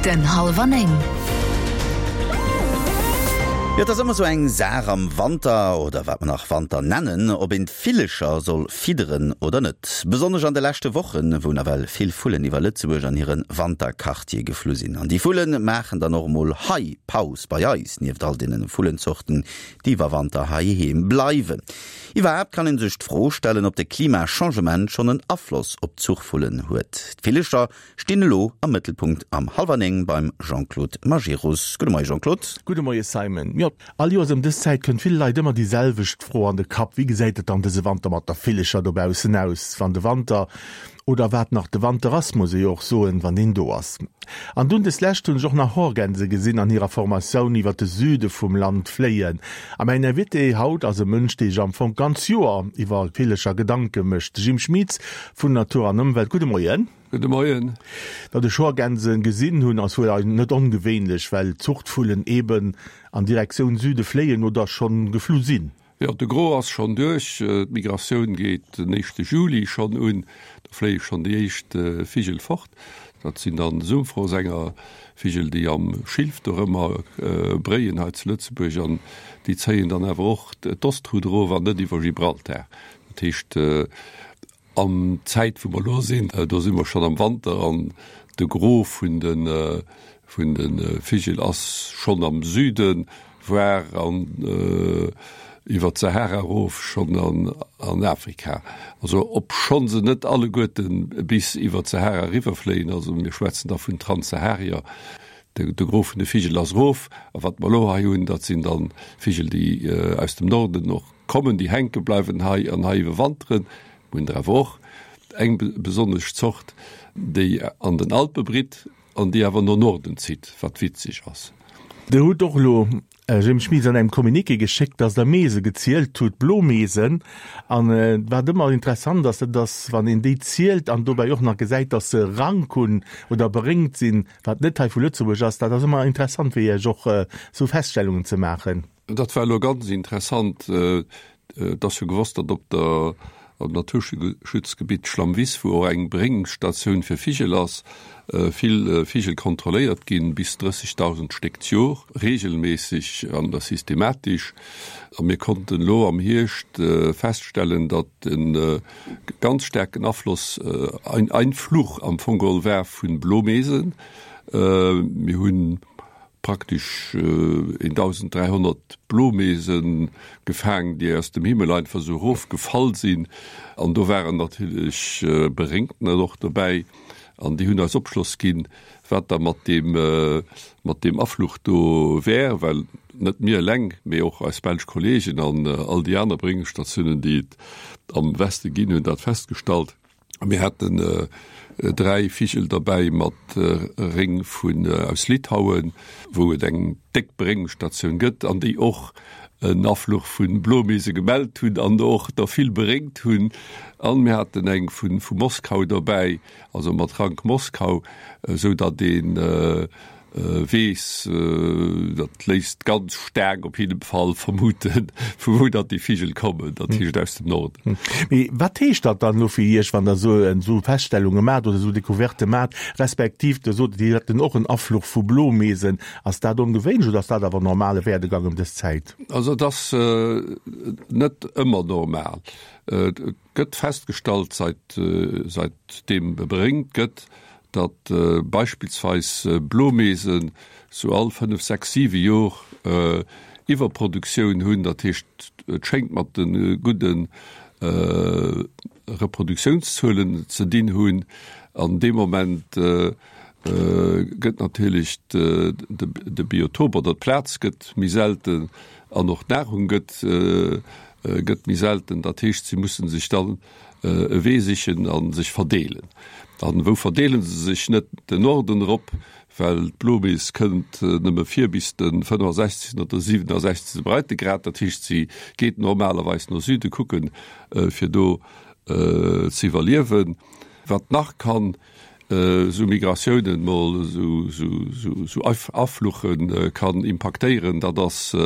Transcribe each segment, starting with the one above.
Minutten hallwer 9. Jo, et ass ëmmer sou eng Saach am Wanter, oder wat mer nach Wanter nennen, ob een d'Villecher soll fidderen oder net. Besonnesch an de leschte Wochen, wou nawell vill Vullen iwwer Lëtzebuerg an hire Wanterquartier geflu sinn. An déi Vulle maachen dann och emol hei Paus bei eis, nieft all deene Vullenzorten, déi iwwer Wanter heiheem bleiwen. Iwwerhaapt kann een sech d'Fro stellen, ob de Klimachangement schonn en Afloss op d'Zuchvullen huet. D'Villecher stinn elo am Mëttelpunkt am Hallwer 9 beim Jean-Claude Majerus. Gudde Moie Jean-Claude. Gudde Moie Simon. Jo, all Joers ëm dës Zäit kënnt ville Leit ëmmer déi selwecht Fro an de Kapp, Wéi gesäit et dann dëse Wanter mat der Villecher dobaussen aus, wann de Wanter Oder wat nach de Wanter ass, muss ee jo och soen, wann deen do ass. An dunn des Lescht hunn ech och nach Horgänse gesinn an hirer Formatioun iwwer de Süde vum Land fléien. A mäin Invité haut ass e Mënsch, dee sech am Fong d'ganz Joer iwwer Villecher Gedanke mécht, de Jim Schmitz vun Natur an Ëmwelt. Gudde Moien. Gudde Moien. Datt ech Horgänse gesinn hunn, ass wuel net ongewéinlech, well Zuchtvullen eben an Direktioun Süde fléien oder schonn geflu sinn. Jo, de Gros ass schonn duerch. D'Migratioun geet den éischte Juli schonn un. Do fléie schonn déi éischt Vigel fort. Dat sinn dann Sumpfrosänger, Vigel, déi am Schilf dorëmmer bréien hei zu Lëtzebuerg. An déi zéien dann awer och d'Ostroute erof an net iwwer Gibraltar. Dat heescht, An d'Zäit wou mer elo sinn, do si mer schonn am Wanter an de Gros vun de vun de Vigel ass schonn am Süden, voire an iwwer d'Sahara erof schonn an an Afrika. Also obschonn se net alleguerte bis iwwer d'Sahara eriwwerfléien, also mir schwätzen da vun Transsaharier, de de Gros vun de Vigel ass erof. A wat mer elo hei hunn, dat sinn dann Vigel déi aus dem Norden och Kommen, déi hänke bleiwen hei an hei iwwerwanteren. Mir hunn der awer och eng besonnesch Zort, déi an den Alpe britt an déi awer no Norden zitt, wat witzeg ass. Dir hutt och elo, Jim Schmitz, an engem Communiqué geschéckt, dass Der Meese gezielt hutt, Blomeesen. An wat ëmmer interessant ass, dat ass, wann een déi zielt an dobäi och nach gesäit, dass se Rank hunn oder beréngt sinn, wat net hei vu Lëtzebuerg ass, dat ass ëmmer interessant fir Iech och esou Feststellungen ze maachen. Dat war elo ganz interessant. Et ass jo gewosst, datt op der am Naturschutzgebitt Schlammwiss, wou och eng Bréngstatioun fir Vigel ass, vill Vigel kontrolléiert ginn, bis 30.000 Stéck d'Jor, reegelméisseg an da systematesch. A mir konnten elo am Hierscht feststellen, datt e ganz staarken Afloss, ein Einfluch am Fong geholl war vu Blomeesen. Mir hunn praktesch 1.300 Blomeese gefaang, déi aus dem Himmel einfach esou erofgefall sinn. An do waren natierlech Beréngtener och dobäi an déi hunn eis Opschloss ginn, wat da mat deem, mat deem Afluch do wär, well net mir eleng, mee och eis belsch Kolleegen an all déi aner Beréngungsstatiounen, déi et am Weste ginn, hunn dat festgestallt. Mir haten 3 Vigel derbäi mat Réng vun aus Litauen, wou et eng déck Beréngungsstatioun gëtt an déi och en Afluch vu Blomeese gemellt hunn an och der vill beréngt hunn. An mir haten eng vu vu Moskau derbäi, also mat Rank Moskau, esou datt een Weess, dat léisst ganz staark op jidde Fall vermuten, vu wou datt déi Vigel kommen, dat heescht aus dem Norden. Mee wat heescht dat dann elo fir Iech, wann Der esou esou Feststellunge maacht oder esou Decouvertë maacht, respektiv Der sot, Dir hätt och en Afluch vu Blomeesen. Ass dat ongewéinlech oder ass dat awer normale Werdegang ëm dës Zäit? Also et ass net ëmmer normal. Et gëtt festgestallt, seit seit deem beréngt gëtt, datt beispillsweis Blomeesen sou all 5, 6, 7 Jor Iwwerproduktioun hunn. Dat heescht, et schéngt mat de gudde Reproduktiounszuelen ze dinn hunn. An deem Moment gëtt natierlech de Biotop oder d'Plaz gëtt méi selten an och d'Nahrung gëtt gëtt méi selten. Dat heescht, si musse sech dann e Wee sichen a sech verdeelen. An wou verdeele se sech? Net den Norden erop, well d'Blomees kënnt nëmme vir bis de 65. oder 67. Breitegrad. Dat heescht, si geet normalerweis no Süde kucken, fir do ze iwwerliewen. Wat nach kann esou Migratiounen mol, esou Afluche kann impaktéieren, dat ass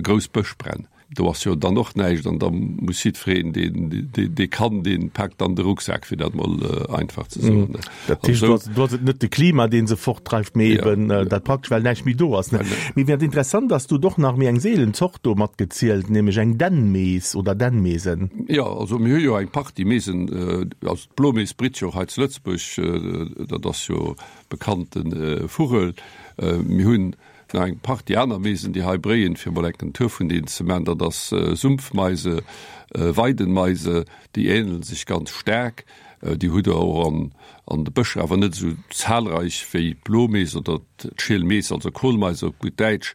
grouss Bëschbränn. Do ass jo dann och näischt an da muss jiddwereen, deen, dee kann, dee paakt dann de Rucksak, fir dat mol einfach ze soen. Dat heescht, do ass et net de Klima, dee se fortdreift, mee eben dat praktesch, well näischt méi do ass. Mee wat interessant ass, du hutt och nach méi eng seelen Zort do matgezielt, nämlech eng Dännmees oder Dännmeesen. Jo, also mir hu jo eng Partie Meesen, also d'Blomees britt jo och hei zu Lëtzebuerg, dat ass jo bekannte Vugel. Mir hunn Nach eng Partie aner Meesen, déi hei bréien, fir mol enken Tour vun deenen ze man, dat ass Sumpfmeise, Weidenmeise, déi ähnelen sech ganz staark. Déi hutt der och an an de Bëscher, awer net esou zahlreich wéi d'Blomees oder d'Schielmees, also Kohlmeise op gutt Däitsch.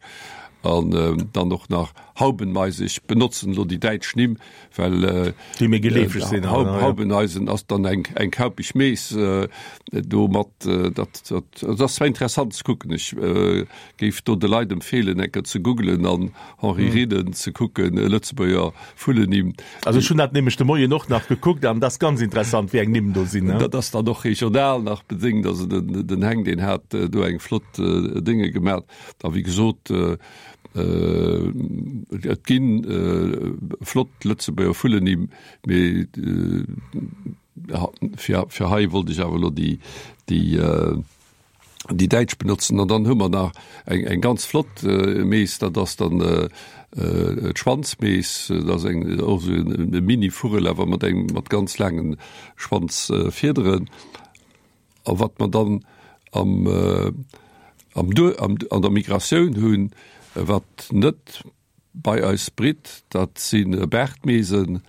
An dann och nach Haubenmeise, ech benotzen elo déi däitsch Nimm, well déi méi geleefeg sinn. Haubeneisen ass dann eng eng kaupeg Mees do mat dat dat ass zwar interessant ze kucken. Ech géif do de Leit empfeelen eng Kéier ze googelen an Henri Rieden ze kucken, Lëtzebuerger Vullennimm. Also ech hunn dat nämlech de Moien och nach gekuckt an dat ass ganz interessant wéi eng Nimm do sinn. Dat ass dann och regional nach bedéngt, also den den Heng deen hat do eng flott Dénge gemat a wéi gesot, Et gi flott Lëtzebuerger Vullennimm, mee fir hei wollt ech awer elo déi däitsch benotzen. An dann hu mer nach eng ganz flott Mees, dat ass dann d'Schwanzmees. Dat ass eng och esou e Mini-Vugel, awer mat engem mat ganz laange Schwanzfiederen. A wat mer dann am, am Duer, am, an der Migratioun hunn, wat net bei eis britt, dat si Baartmeesen,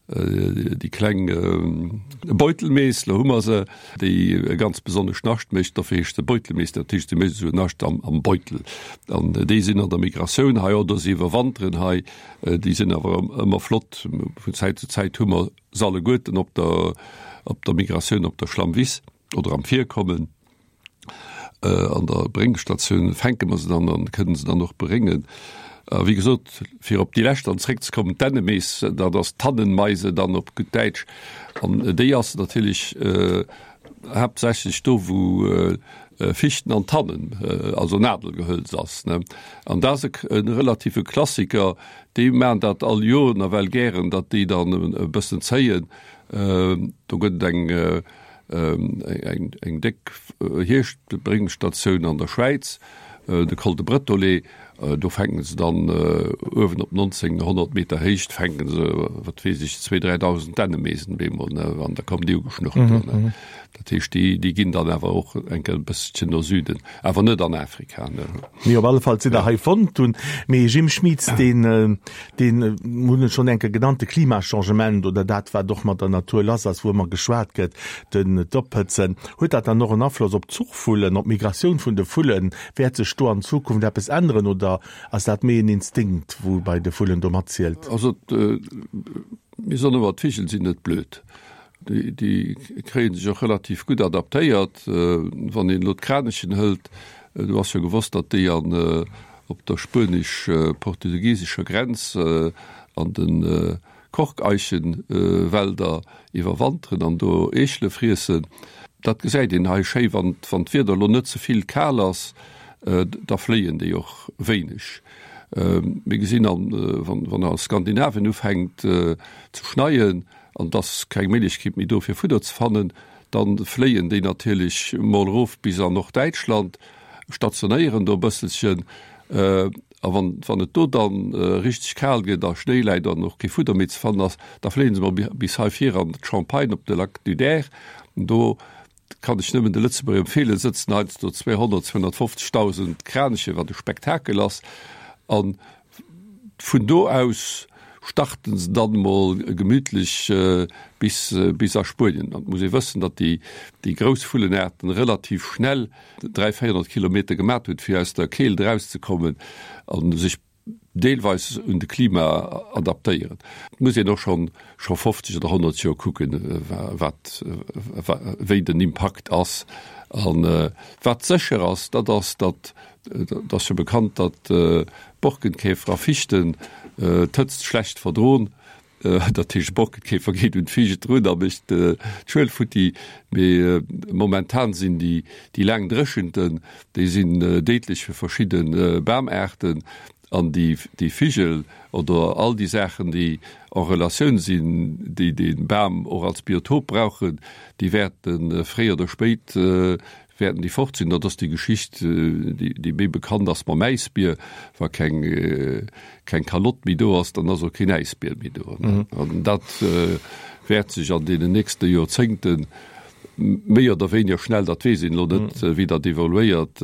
déi kleng Beutelmees, lo hu mer se, déi e ganz besonnescht Nascht mécht, dofir heescht se Beutelmees, dat heescht, se mécht esou en Nascht am, am Beutel. An déi sinn an der Migratioun hei oder se iwwerwanteren hei. Déi sinn awer ëmmer flott. Vun Zäit zu Zäit hu mer Se alleguerten op der op der Migratioun op der Schlammwiss oder am Virkommen. An der Bréngstatioun fänke mer se dann an kënnen se dann och beréngen. A wéi gesot, fir op déi lescht dann zréckzekommen, d'Dännemees, dat ass d'Tannenmeise dann op gutt Däitsch. An déi ass natierlech haaptsächlech do, wou Fichten an Tannen, also Nadelgehölz ass. An dat ass e relative Klassiker, Déi maachen dat all Joer nawell gären, datt déi dann e bëssen zéien. Do gëtt et eng, eng déck Hierschtbréngstatioun an der Schwäiz, de Col de Bretolet. Do fänken se dann uewen op 1900 Meter Héicht fänken se, wat weess ech, zwee, 3.000 Dännemeesen bemol, ne, an da kommen déi ugeschnurrt do, ne. Dat heescht, déi, déi ginn dann awer och eng Kéier e bësselchen no Süden, awer net an Afrika, ne. Mee op alle Fall sinn der hei fonnt hunn. Mee Jim Schmitz, deen, deen, hunn et schonn eng Kéier genannt, de Klimachangement oder dat, wat och mat der Natur lass ass, wou ëmmer geschwat gëtt, den, d'Ophëtzen, huet dat dann och en Afloss op d'Zuchvullen, op d'Migratioun vun de Vullen? Wäert sech do an Zukunft eppes änneren oder ass dat méi en Instinkt, wou bei de Vullen do matzielt? Also, mir soen ëmmer, d'Vigel sinn net blöd. Déi kréie sech och relativ gutt adaptéiert. Wann een elo d'Kranichen hëlt, do ass jo gewosst, datt déi an op der spuenesch-portugiesescher Grenz an de Korkeichenwälder iwwerwanteren an do Eechele friessen. Dat gesäit een hei schéi, wann d'Wieder elo net ze vill kal ass, da fléien déi och wéineg. Mir gesinn, wann a Skandinavien ufänkt ze schneien, an et ass keng Méiglechkeet méi do fir Fudder ze fannen, da fléien déi natierlech mol erof bis an Norddäitschland, stationéieren do e bësselchen, a wann wann et do dann richteg kal gëtt a Schnéi läit an och kee Fudder méi ze fannen ass, da fléie se mol bis hei vir an d'Champagne op de Lac du Der. Do kann ech nëmmen de Lëtzebuerger empfeelen, sëtzen heiansdo 200, 250.000 Kraniche, wat e Spektakel ass, an Vun do aus starten se dann mol gemütlech bis bis a Spuenien. An et muss ee wëssen, datt déi déi grouss Vullenaarten relativ schnell 300, 400 Kilometer gemat hunn, fir aus der Keelt erauszekommen a sech deelweis un de Klima adaptéieren. Et muss een och schonn scho 50 oder 100 Joer kucken, wat wéi den Impakt ass. An wat sécher ass, dat ass, datt Et ass jo bekannt, datt Borkenkäfer a Fichten d'Hëtzt schlecht verdroen. Dat heescht, e Borkenkäfer geet un d'Fiicht drun a mécht d'Schuel futti. Mee momentan sinn déi laang Dréchenten, déi sinn déidlech fir verschidde Bamaarten. An déi, déi Vigel oder all déi Saachen, déi en Relatioun sinn, déi dee Bam och als Biotop brauchen, déi wäerte fréi oder spéit wäerten déi fort sinn. Dat ass déi Geschicht, déi méi bekannt ass mam Äisbier. Wa keng, keng Kalott méi do ass, dann ass och keen Äisbier méi do. An dat wäert sech an deenen nächste Joerzéngte méi oder wéiniger schnell, dat weess een elo net, wéi dat evoluéiert,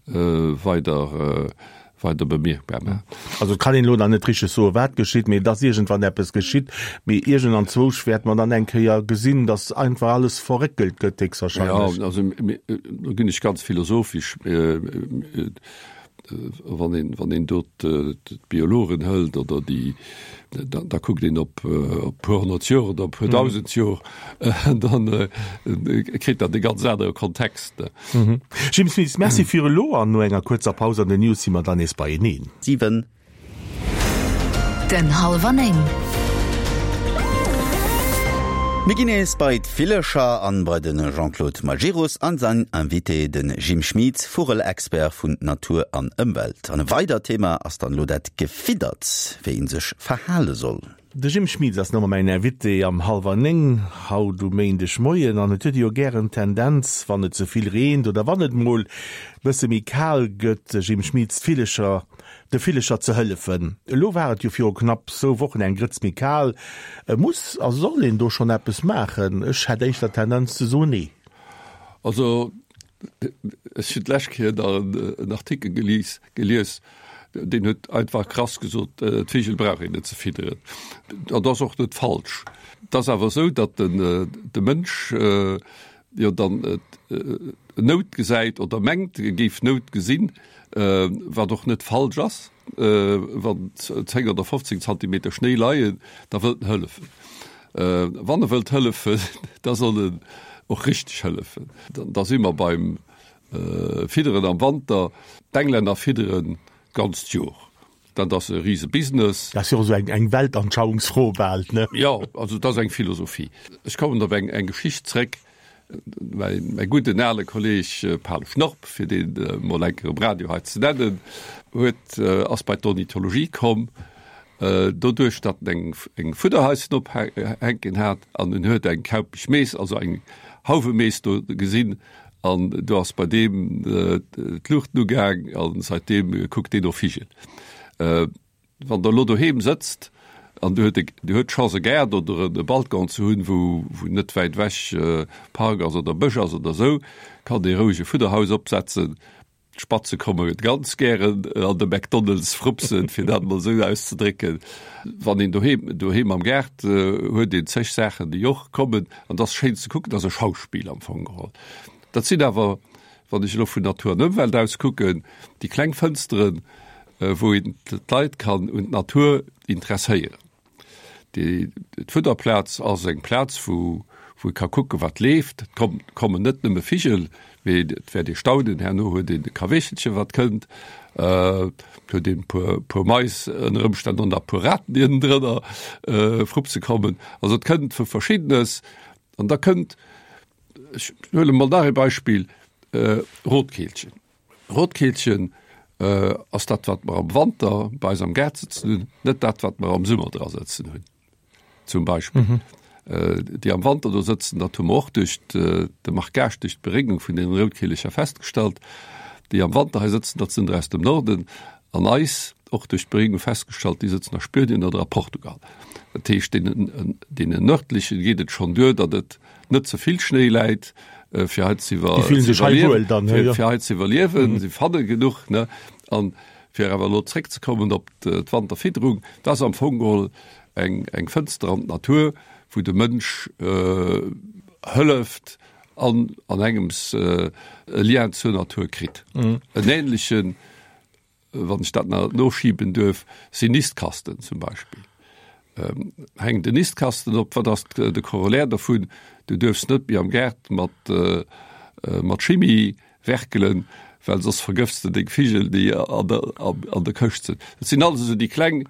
weider weider bemierkbar maachen. Also et kann een elo nach net richteg soen, wat geschitt, mee dass iergendwann eppes geschitt. Mee iergend anzwousch wäerte mer dann eng Kéier gesinn, dass einfach alles verréckelt gëtt, héchstwahrscheinlech. Jo, also do ginn ech ganz philosophesch. Wann een, wann een do d'Biologen hëlt oder déi, da kuckt een op e puer honnert Joer oder e puer dausend Joer, dann kritt dat e ganz anere Kontext. Jim Smith, Merci fir elo an no enger kuerzer Paus an den News si mer dann nees beieneen. 7. Den Hallwer 9. Mir ginn nees bei d'Villecher an bei de Jean-Claude Majerus an sain Invité, de Jim Schmit, Vugel-Expert vun Natur an Ëmwelt. An e weidert Thema ass dann elo dat Gefiddert, wéi een sech verhale soll. De Jim Schmitz ass no mäin Invité am hallwer 9 haut um Méindeg Moien an et huet ee jo gären d'Tendenz, wann et ze vill reent oder wann et mol bësse méi kal gëtt, Jim Schmitz, d'Villecher, de Villecher ze hëllefen. Elo war et jo viru knapp zwou Wochen eng Grëtz méi kal. Muss a soll een do schonn eppes maachen? Ech hätt éischter d'Tendenz ze soen, nee. Also ech hunn d'lescht Kéier nach en Artikel gelies, gelies, deen huet einfach krass gesot, d'Vigel brauch een net ze fidderen. Dat ass och net falsch. Et ass awer esou, datt den de Mënsch jo dann Nout gesäit oder mengt, e géif Nout gesinn, wat och net falsch ass. Wann 10 oder 15 Zantimeter Schnéi leien, da wëllt en hëllefen. Wann e wëllt hëllefen, da soll en och richteg hëllefen. Da si mer beim Fidderen am Wanter, d'Englänner fidderen d'ganzt Jor. Dat ass e rise Business. Dat ass jo och esou eng Weltanschauungsfro bal, ne? Jo, also et ass eng Philosophie. Ech kommen op eng Geschicht zréck. Mäi gudden ale Kolleg Pal Schnorp, fir deen emol eng Kéier um Radio hei ze nennen, huet, ass bei d'Ornithologie komm, doduerch datt en eng Fudderhaischen ophänken hat an en huet eng kaupeg Mees, also eng Hauwemees do gesinn An do ass bei deem d'Luuchten ugaang a seitdeem kuckt deen no Vigel. Wann Der elo doheem sëtzt an Dir huet Dir huet d'Chance e Gaart oder e Balcon ze hunn, wou wou net wäit ewech Park ass oder Bësch ass oder esou, kann ee roueg e Fudderhaus opsetzen. D'Spatze komme ganz gären an de McDonald's frupsen, fir dat emol esou auszedrécken. Wann een doheem, doheem am Gaart huet een zeg Saachen, déi och kommen. An dat ass schéin ze kucken, dat ass e Schauspill am Fong geholl. Dat sinn awer, wann ech elo vun Natur an Ëmwelt aus kucken, déi kleng Fënsteren, wou een d'Leit kann un d'Natur interesséieren. D'Fudderplaz ass eng Plaz, wou wou ee ka kucken, wat leeft. Et kommen net nëmme Vigel, mee et wäert ee staunen, herno huet een e Kaweechelchen, wat kënnt, et huet een e puer, puer Mais ënner Ëmstänn och nach e puer Raten, déi ënnendrënner frupse kommen. Also et kënnt vu Verschiddenes. An da kënnt, ech huele mol nach ee Beispill, Rotkeelchen. Rotkeelchen ass dat, wat mer am Wanter bei eis am Gaart sëtzen hunn, net dat, wat mer am Summer dra sëtzen hunn. Zum Beispill. Mhm. Déi am Wanter do sëtzen, dat hu mer och duerch de Marquage, duerch d'Beréngung vun den Routkeelecher festgestallt. Déi am Wanter hei sëtzen, dat sinn der aus dem Norden. An eis och duerch d'Beréngung festgestallt, déi sëtzen a Spuenien oder a Portugal. Dat heescht, deenen, deenen Nërdlechen geet et schonn duer, datt et net ze vill Schnéi läit, fir hei ze iwwer fir hei ze iwwerliewen. Si fanne genuch ne an fir awer elo zréckzekommen op d'Wanterfidderung, dat ass am Fong geholl eng eng Fënster an d'Natur, wou de Mënsch hëlleft an an engems e Lien zur Natur kritt. En ähnlechen wann ech dat nach noschiben duerf, sinn Nistkasten zum Beispill. Hänkt en Nistkasten op, wat ass de Corollaire dovun? Du duerfs net méi am Gaart mat mat Chimie werkelen, well soss vergëfts de deng Vigel, déi an der an der Këscht sinn. Dat sinn alles esou déi kleng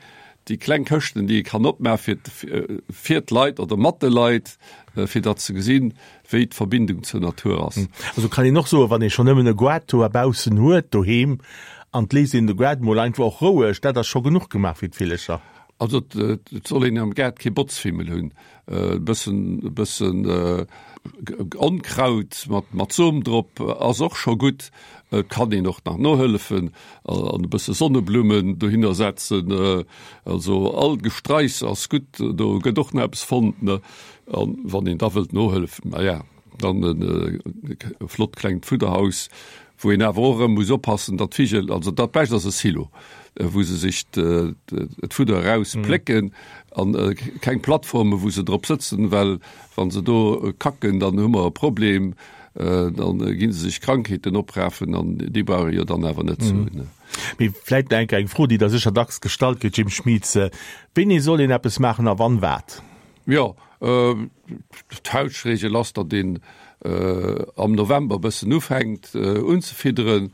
déi kleng Këschten, déi ee kann opmaachen fir fir d'Leit oder mat de Leit, fir datt se gesinn, wéi d'Verbindung zur Natur ass. Also kann een och soen, wann ee schonn nëmmen e Goart do baussen huet doheem. An et léisst een de Gaart mol einfach och roueg, dat ass scho genuch gemaach fir d'Villecher. Also et soll een am Gaart kee Botzfimmel hunn, e bëssen, e bëssen Onkraut mat, mat Som drop ass och scho gutt. Et kann een och nach nohëllefen an e bësse Sonneblummen dohinner setzen. Also all Gestraichs ass gutt, do gëtt och nach eppes fonnt, ne. An wann een da wëllt nohëllefen, na ja. Dann e flott klengt Fudderhaus, wou een awer och erëm muss oppassen, datt d'Vigel, also dat Bescht ass e Silo, wou se sech d'Fudder eraus plécken an keng Plattforme wou se drop sëtzen, well wa se do kacken, dann hu mer e Problem, dann gi se sech Krankheeten oprafen an déi brauch ee jo dann awer net ze hunn. Mee vläit nach eng Kéier eng Fro, déi der sécher dacks gestallt gëtt, Jim Schmitz, Wéini soll een eppes maachen a wann wat? Jo, d'Fauschtregel ass, datt een am November e bëssen ufänkt unzefidderen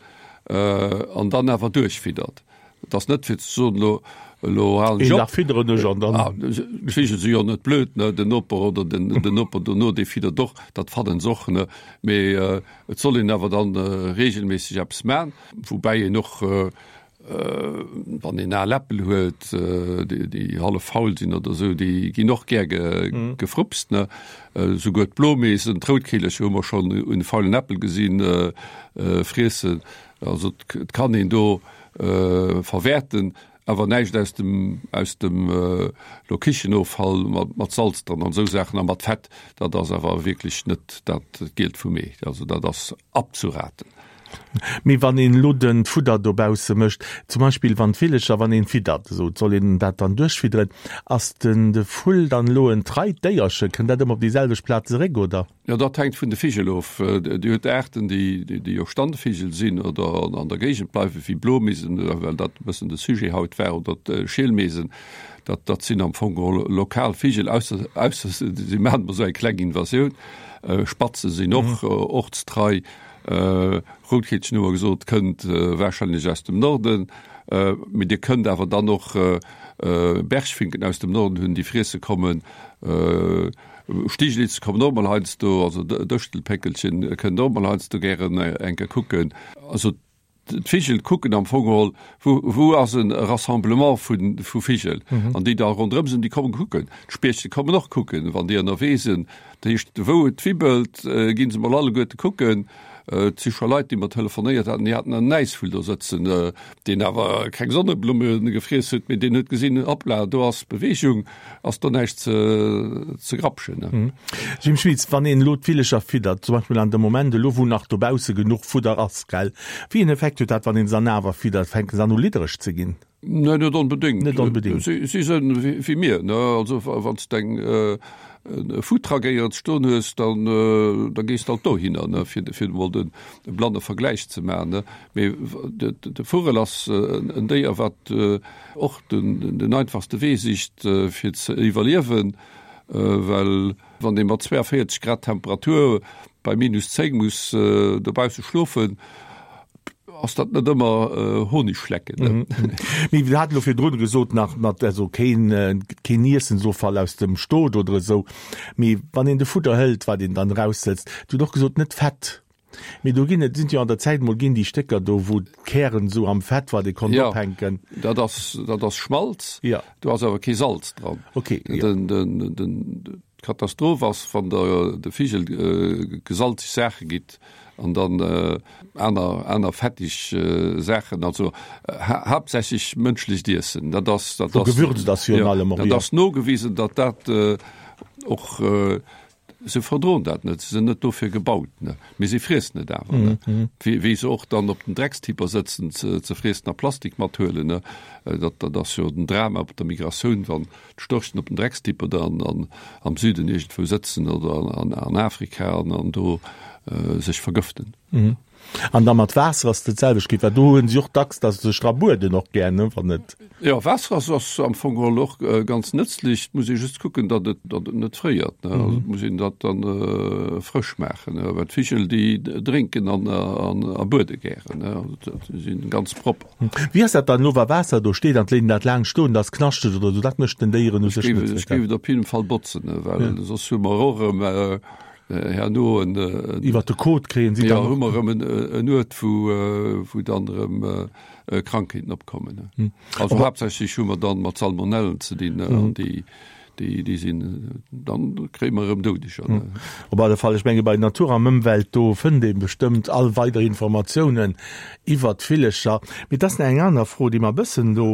an dann awer duerchfiddert. Et ass net fir ze soen, elo elo halen ech op. Een Dag fidderen ech an dann. D'Vigel si jo net blöd, ne, den Noper oder den Noper dono, dee fiddert och, dat fannen se och, ne. Mee et soll een awer dann regelméisseg eppes man, woubäi een och Wann een al Äppel huet, déi hallef faul sinn oder esou, déi ginn och gär gefrupst. Esouguer d'Blomeesen, d'Routkeelercher hu mer schonn un faulen Äppel gesinn friessen. Also et kann een do verwäerten, awer näischt aus dem aus dem lo Kichenoffall mat Salz dran an esou Saachen a mat Fett, dat ass awer wierklech net dat Gielt vum Ee. Also dat ass abzuraten. Mee wann een elo den Fudder dobausse mécht, zum Beispill wann d'Villecher, wann een fiddert, esou, soll een dat dann duerchfidderen, ass den de Vull dann elo en treit Déierchen, kënnt dat ëmmer op déi selwecht Plaz zeréck, oder? Jo, dat hänkt vun de Vigel of. Dir hutt Aarten, déi déi jo Standvigel sinn oder an der Géigend bleiwen, wéi Blomeesen, well dat e bëssen de Sujet haut war, oder d'Schielmeesen, dat dat sinn am Fong geholl lokal Vigel, ausser ausser si maachen emol esou eng kleng Invasioun. Spatze sinn och ortstrei. Routkeelchen hu mer gesot, kënnt warscheinlech aus dem Norden, mee Dir kënnt awer dann och Bergfinken aus dem Norden hunn, déi friesse kommen. Stiglitz kommen och mol heiansdo, also Dëschtelpéckelchen kënnt och mol heiansdo gären eng Kéier kucken. Also d'Vigel kucken am Fong geholl, wou, wou ass e Rassemblement vu, vu Vigel an déi da ronderëm sinn, déi kommen kucken. D'Spiechte kommen och kucken, wann déi ënnerwee sinn. Dat heescht, wou et wibbelt, gi se mol alleguerte kucken. Et si scho Leit, déi mer telefonéiert haten, déi haten en Äisvull do sëtzen, deen awer keng Sonneblumme gefriess huet, mee deen huet gesinn, Hoppla, do ass Beweegung, ass do näischt ze, ze grapschen. Jim Schmitz, Wann een elo d'Villecher fiddert, zum Beispill an dem Moment elo, wou nach dobausse genuch Fudder ass, gell, wéi een Effekt huet dat, wann een se dann awer fiddert? Fänke se an u liddereg ze ginn? Nee, net onbedéngt. Net onbedéngt. Si, si sënn wéi mir, ne? Also wann s de eng e Foodtruck éierens stoen hues, dann da gees de alt dohinner, ne, fir fir emol den de blanne Vergläich ze maachen, ne? Mee de de Vugel ass en Déier, wat och den den einfachste Wee sicht fir ze iwwerliewen, well wann ee mat 42 Grad Temperatur bei minus 10 muss dobausse schlofen, ass dat net ëmmer Honig schlecken. Ne? Mee mir haten elo virdrun gesot nach mat also keen keen Iessensoffall aus dem Stot oder esou. Mee wann een de Fudder hëlt, wat een dann eraussëtzt, Dir hutt och gesot net Fett. Mee do ginn et sinn jo an der Zäit mol ginn déi Stécker do wou d'Kären esou am Fett wat ee konnt Ja, ophänken. dat ass dat ass Schmalz, Ja. do ass awer kee Salz dran. Okay, ja. Den den den D'Katastroph ass, wann der de Vigel gesalzeg Saache gitt an dann aner aner fettig Saachen, also haaptsächlech mënschlecht Iessen. Dat ass dat ass gewürzt ass virun allem och, dat ass nogewisen, datt dat och, se verdroen dat net, se sinn net dofir gebaut, ne, mee se friessen et awer, ne, wéi wéi se och dann op den Dreckstipper sëtzen ze ze friessen a Plastik mathuelen, ne. Dat dat ass jo den Drama op der Migratioun, wann d'Störchen op den Dreckstipper da an am Süden iergendwou sëtzen oder an Afrika an an do sech vergëften. An da mat Waasser ass et dat selwecht geet, well do hunn si och dacks, datt se sech dra bueden och gär, ne, wann et. Jo, Waasser ass ass am Fong geholl och ganz nëtzlech. Et muss ee just kucken, datt et datt et net fréiert, ne. Also et muss een dat dann frësch maachen, ne, well d'Vigel déi drénken an an a buede gären, ne, also dat si ganz propper. Wéi ass dat dann elo, wa Waasser do steet an d'Léinen dat laang stoen, dass knaschteg oder esou? Dat mécht den Déieren u sech net. Ech géif et op jidden Fall botzen, well soss hu mer och erëm. Herno en. Iwwer de Kot kréien si dann. Jo, hu mer erëm en Uert, wou, wou dann erëm Krankheeten opkommen. Also haaptsächlech hu mer dann mat Salmonellen ze dinn, an déi, déi, déi sinn, dann kréie mer erëm Doudeger. Op alle Fall, ech menge bei Natur an Ëmwelt, do fënnt ee bestëmmt all weider Informatiounen iwwert d'Villecher. Mee et ass nach eng aner Fro, déi mer e bëssen do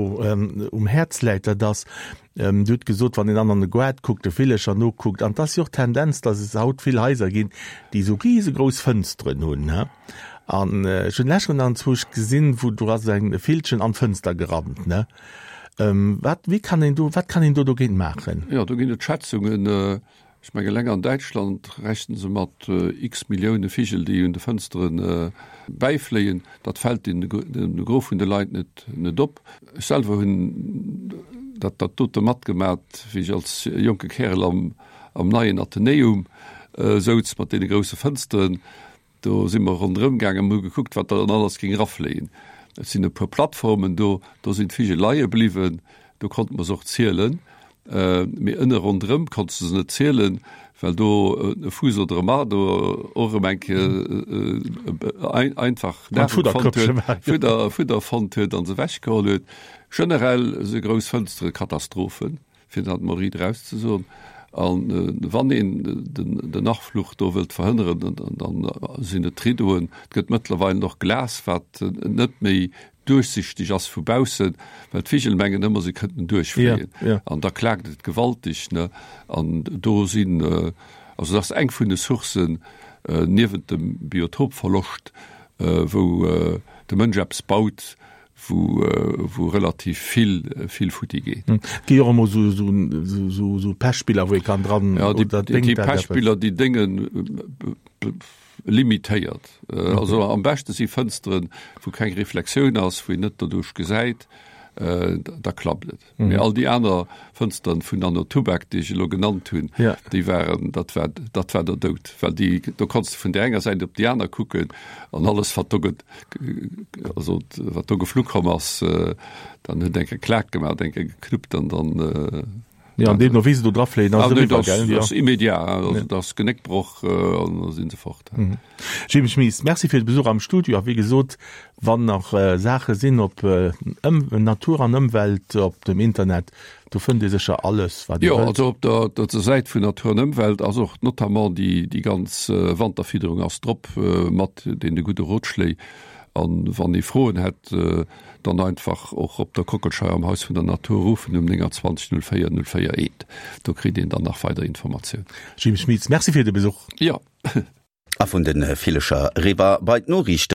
um Häerz läit, dat ass, Dir hutt gesot, wann een dann an de Goart kuckt, de Villecher nokuckt, an 't ass jo och d'Tendenz, datt et haut vill Haiser ginn, déi esou risegrouss Fënsteren hunn, he. An ech hunn lech an zwousch gesinn, wou do ass eng e Villchen an d'Fënster gerannt, ne. Wat, wéi kann een do, wat kann een do dogéint maachen? Jo, do ginn et Schätzungen. Ech mengen, eleng an Däitschland rechne se mat x Millioune Vigel, déi un de Fënstere bäifléien. Dat fält de Gros vun de Leit net op. Ech selwer hunn dat dote matgemat, wéi ech als jonke Kärel am neien Athenäum souz, mat deene grousse Fënsteren. Do si mer ronderëm gaangen, hu gekuckt, wat dann alles géing erafléien. Et sinn e puer Plattformen do, do sinn d'Vigel leie bliwwen, do konnte mer se och zielen. Mee ënne ronderëm konntst de se net zielen, well do e Fuuss oder e Marder och erëm eng Kéier einfach Nahrung fonnt huet, Fudder, Fudder fonnt huet an se ewechgeholl huet. Generell si grouss Fënstere Katastrophen. fir dat mol riit eraus ze soen. A wann een den Achfluch do wëllt verhënneren, dann sinn et d'Rideauen. Et gëtt mëttlerweil och Glas, wat net méi duerchsichteg ass vu baussen, well d'Vigel mengen ëmmer, se kënnten duerchfléien. An da klaakt et gewaltig. An do sinn, also dat ass eng vun de Sourcen, niewent dem Biotopverloscht, wou de Mënsch eppes baut, wou wou relativ vill vill futti geet. Et gi jo och emol sou sou sou sou Pechspiller wou ee kann dran Ja déi déi déi Pechspiller déi déngen limitéiert. Also am beschte si Fënsteren wou keng Reflexioun ass, wou een net doduerch gesäit, da klappt et. Mee all déi aner Fënsteren vun Anno Tubak, déi ech elo genannt hunn, déi waren, dat war, dat war der Doud. Well déi, do konns de vun där enger Säit op déi aner kucken an alles, wat do ge, also wat do geflu komm ass, dann huet eng Kéier Klak gemaach, eng Kéier geknuppt an dann. Jo, an deemno wéi se do drafléien, ass et eriwwer, gell? Dat ass immediat, also dat ass Genéckbroch an da si se fort. Jim Schmies, Merci fir de Besuch am Studio a wéi gesot, Wann nach Saache sinn op Natur an Ëmwelt op dem Internet, do fënnt ee sécher alles wat ee wëllt. Jo, also op der der Säit vun Natur an Ëmwelt ass och notamment déi déi ganz Wanterfidderung ass drop mat deene gudde Rotschléi. An wann ee Froen hätt, dann einfach och op der Kockelscheier am Haus vun der Natur ruffen um 29 04 04 1. Do kritt een dann nach weider Informatiounen. Jim Schmitz, Merci fir de Besuch. Jo. A vun de Villecher eriwwer bei d'Noriichten.